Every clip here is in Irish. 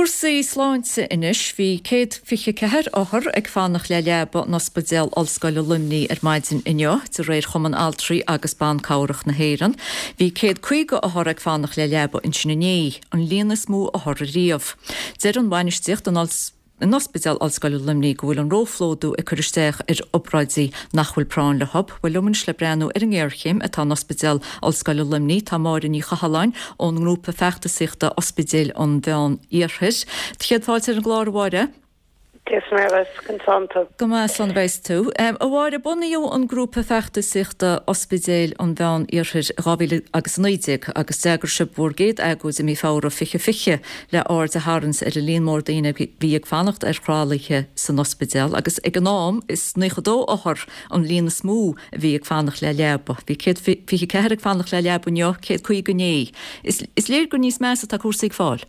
Cúrsaí sláinte anois. Bhí 124 othar ag fanacht le leaba in Ospidéal Ollscoile Luimnigh ar maidin inniu, de réir Chumann Altraí agus Ban Cabhrach na hÉireann. Bhí 150 othar ag fanacht le leaba ansin inné, an líon is mó othar riamh. Deir an bhainistíocht in Ospidéal Ollscoile Luimnigh go bhfuil an róphlódú ag cur isteach ar obráidí nach bhfuil práinn leo. Bhuel, liom anois le breathnú ar an ngéarchéim atá in Ospidéal Ollscoile Luimnigh tá Máire Ní Chathalláin ón ngrúpa feachtasaíochta Ospidéil an Mheán Iarthair. Céad fáilte ar an gclár, a Mháire. Dia is Muire dhuit, conas tánn tú? Go maith, slán a bheas tú. A Mháire, bunaíodh an grúpa feachtasaíochta Ospidéil an Mheán Iarthair i 2019 agus d'eagraigh sibh bhur gcéad agóid i mí Feabhra 2020 le aird a tharraingt ar an líon mór daoine a bhí ag fanacht ar thralaithe san ospidéal agus ag an am is 92 othar an líon is mó a bhí ag fanacht le leaba. Bhí 124 ag fanacht le leaba inniu, 150 inné. Is léir gur níos measa atá cúrsaí ag fáil.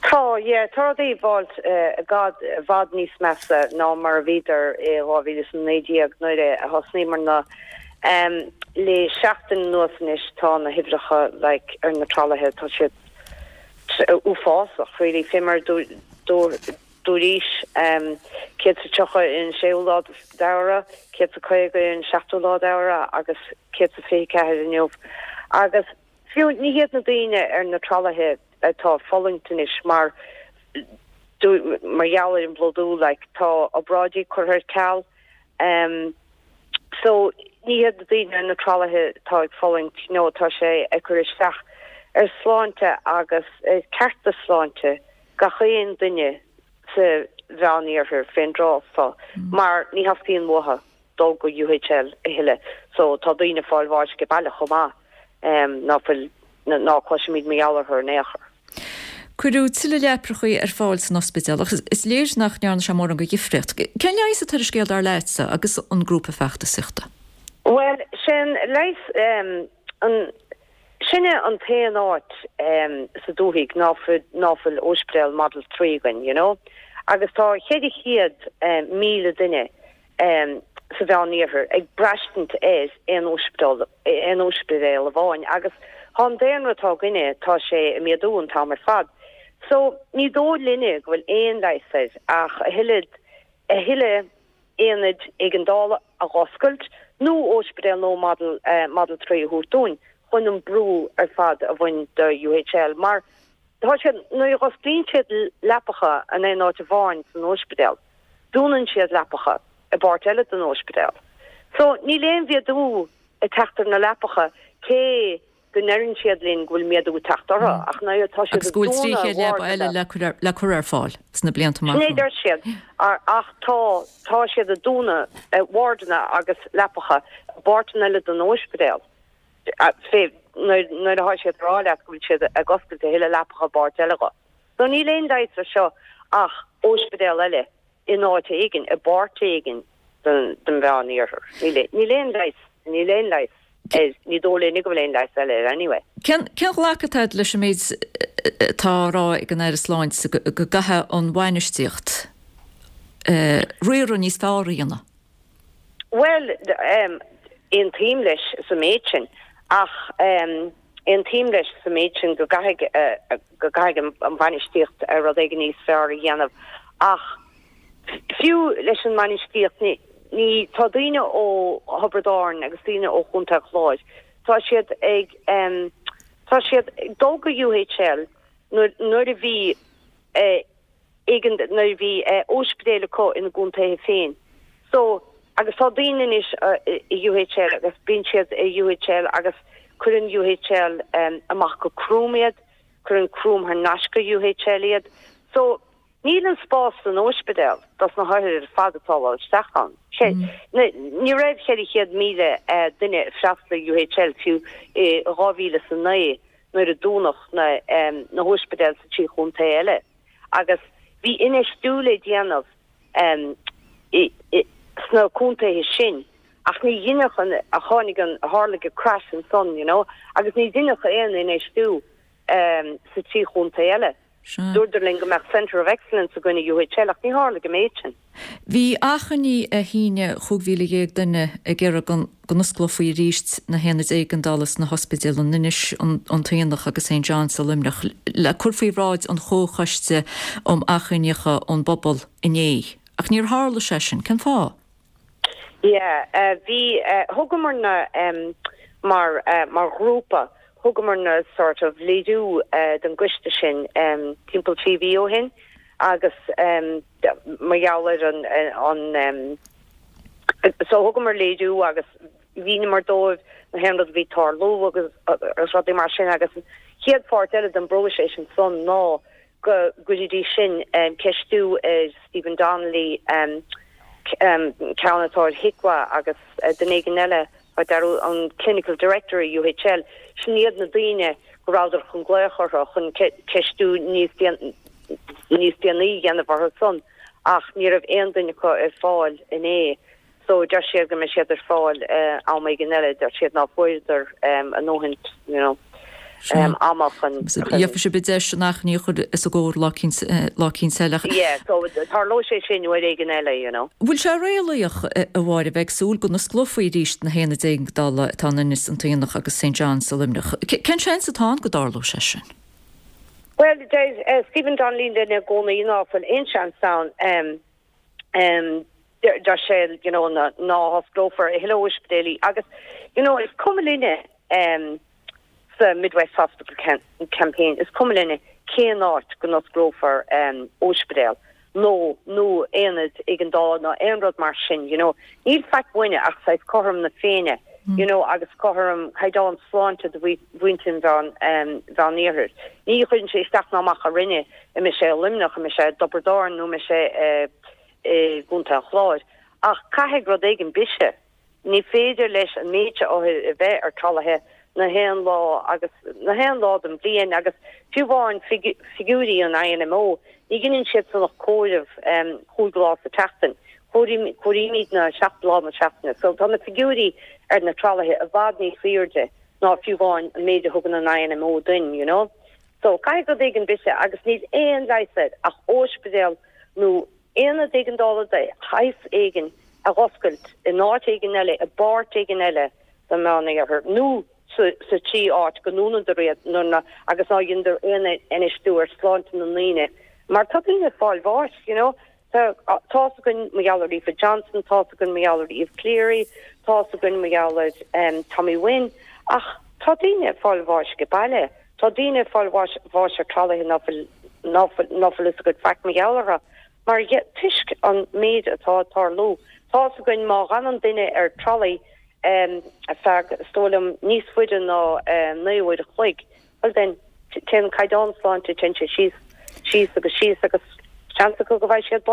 Tá, yeah, tá rudaí ag fáilt i bhfad, i bhfad níos measa ná mar a bhíodar i 2019 nuair a thosnaíomarna. Le seachtain anuas anois tá na huimhreacha like ar na tralaithe, tá siad uafásach really, fé mar a dúraís, 130 ar an séú lá d'Fheabhra, 150 ar an seachtú lá d'Fheabhra agus 124 inniu. Agus fiú ní hiad na daoine ar na tralaithe atá ag fulaingt anois mar mar gheall ar an bplódú like tá obráidí curtha ar ceal. So ní hiad na daoine ar na tralaithe atá ag fulaingt no tá sé ag cur isteach ar sláinte agus ar cearta sláinte gach aon duine sa Mheán Iarthar fén dtráth so mar ní theastaíonn uathu dul go UHL a thuilleadh so tá daoine ag fáil bháis age baile chomh maith ná fuil ná cloisimid mar gheall orthu in aon chor. Cuireadh tuilleadh leaprachaí ar fáil san ospidéal ach is léir nach ndearna sé mórán de dhifríocht. Cén leigheas atá ar an scéal dar leatsa agus an grúpa feachtasaíochta? Bhuel, sé'n leigheas, an, sinne an t-aon áit sa dúthaigh ná fuil, ná fuil óispidéal Model 3 againn, you know. Agus tá 400,000 duine sa Mheán-Iarthar ag braistint ar aon óispidéal, aon óispidéal amháin agus tá an daonra atá againne, tá sé ag méadú an t-am ar fad. So, ní dóigh linne go bhfuil aon leigheas air ach a thuilleadh, a thuilleadh aonaid éigeandála a dh'oscailt nó óispidéal nua Model, Model 3 a thabhairt dúinn chun an brú ar fad a bhaint de UHL mar tá siad, nuair a dh'osclaíonn siad leapacha in aon áit amháin san óispidéal, dúnann siad leapacha i bpáirt eile den óispidéal. So, níl aon mhéadú ag teacht ar na leapacha cé go ndeireann siad linn go bhfuil méadú ag teacht orthu ach nuair atá siad Agus go bhfuil 300 leaba eile le cur ar fáil sna blianta amach Sin é deir siad ach tá tá siad ag dúnadh wardanna agus leapacha i bpáirteanna eile den óispidéal fé nuair atá siad ag rá leat go bhfuil siad ag oscailt a thuilleadh leapacha i bpáirt eile dho. So níl aon leigheas ar seo ach óispidéal eile in áit éigin, i bpáirt éigin den Mheán-Iarthar. Níl aon leigheas, níl aon leigheas air, ní dóigh linne go bhfuil aon leigheas eile air anyway. Cén ghlacadh atá agat leis an méid atá á rá ag an Aire Sláinte go gcaithfidh an bhainistíocht riaradh níos fearr a dhéanamh? Bhuel, aontaím leis sa méid sin, ach aontaím leis sa méid sin go gcaithfidh, go gcaithfidh an bhainistíocht rud éigin níos fearr a dhéanamh. Ach fiú leis an mbainistíocht, ní, ní, tá daoine ó Thiobraid Árann agus daoine ó Chontae an Chláir, tá siad ag, tá siad ag dul go UHL nuair, nuair a bhí, éigin nuair a bhí óispidéil acu ina gcontaetha féin. So, agus tá daoine anois i UHL agus bíonn siad i UHL agus cuireann UHL amach go Croom iad, cuireann Croom thar n-ais go UHL iad. So, níl an spás san óispidéal dos na hothair ar fad atá ag dul isteach ann. Sé, ní raibh 400,000 duine ag freastal ar UHL fiú i 2009 nuair a dúnadh na na hóispidéil sa trí chontae eile agus bhí infheistiú le déanamh sna contaetha sin ach ní dheineadh an a tháinig an a tharlaigh an crash ansan you know agus ní dheineadh aon infheistiú sa trí chontae eile. Dúradar linn go mbeadh Centre of Excellence againn i UHL ach ní tharlaigh an méid sin. Bhí achainí a shíneadh 15,000 duine ag iarraidh go n-osclófaí arís na haonaid éigeandála sna hospidéil in Inis, an tAonach agus St John's i Luimneach le cur faoi bhráid an Chomhchoiste um Achainíocha ón bPobal inné. Ach níor tharla sé sin. Cén fáth? Yeah, bhí, thugamar-na mar, mar ghrúpa, thugamar-na sort of léiriú don gcoiste sin timpeall 3 mhí ó shin agus mar gheall ar an, an, so thugamar léiriú agus mhíníomar dóibh na haon rud a bhí ag tarlú agus rudaí mar sin agus an chéad pháirt eile den bpróiseas ansan ná go gcuirfidís sin ceistiú ar Stephen Donnelly, ceann atá ar HIQA agus duine éigin eile, an Clinical Director i UHL, sin iad na daoine go rabhadar chun glaoch orthu chun ceistiú níos níos déanaí a dhéanamh orthu san ach ní raibh aon duine acu ar fáil inné. So deir siad go mbeidh siad ar fáil am éigin eile, deir siad ná fuaireadar a ndóthain, you know, ama chun. Gheobhaidh sibh deis an achainí a chur os a gcomhair lá eicínt eile. Yeah, so tarlóidh sé sin uair éigin eile, you know. Bhfuil sé réalaíoch, a Mháire, a bheith ag súil go n-osclófaí arís na haonaid éigeandála atá in Inis, an tAonach agus St John's i Luimneach? Cén seans atá ann go dtarlódh sé sin? Bhuel, deir Stephen Donnelly linn i gcónaí ná fuil aon seans ann. Deir sé you know ná hosclófar a thuilleadh ospidéilí agus you know is cuma linne sa Midwest Hospital Campaign, is cuma linne cén áit go n-osclófar ospidéal nó nó aonad éigeandála nó aon rud mar sin you know. Níl faic uainne ach saghas cothrom na Féinne you know agus cothrom caighdeán sláinte do mhuintir an Mheán Iarthair. Ní chuireann sé isteach ná amach orainne an mbeidh sé i Luimneach, an mbeidh sé i dTiobraid Árann nó an mbeidh sé i gContae an Chláir. Ach caithfidh rud éigin biseadh. Ní féidir leis an méid seo othair a bheith ar tralaithe na haon lá agus na haon lá den bhliain agus fiú amháin figiúirí an INMO, ní dheineann siad san ach comhaireamh chúig lá sa tseachtain. Comhairímidne 7 lá na seachtaine. So tá na figiúirí ar na tralaithe i bhfad níos aoirde ná fiú amháin an méid a thugann an INMO duinn, you know. So, caithfidh rud éigin biseadh agus níl aon leigheas air ach óispidéal nó aonad éigeandála de shaghas éigin a dh'oscailt in áit éigin eile, i bpáirt éigin eile den Mheán-Iarthar nó sa sa trí áit go ndúnadar iad nuair ná agus ná dheineadar aon infheistiú ar sláinte na ndaoine mar tá daoine ag fáil bháis, you know. Tá tá's againn mar gheall ar Aoife Johnson, tá's againn mar gheall ar Eve Cleary, tá's againn mar gheall ar Tommy Wynne, ach tá daoine ag fáil bháis age baile, tá daoine ag fáil bháis bháis ar tralaithe ná fuil ná fuil ná fuil fhios agat faic mar gheall orthu. Mar toisc an méid atá ag tarlú. Tá's againn má dh'fhanann duine ar tralaí ar feadh, is dóigh liom, níos faide ná 9 uair a chloig, Bhuel then, téann caighdeán sláinte, téann sé síos, síos agus síos agus seans acu go bhfaighidh siad bás.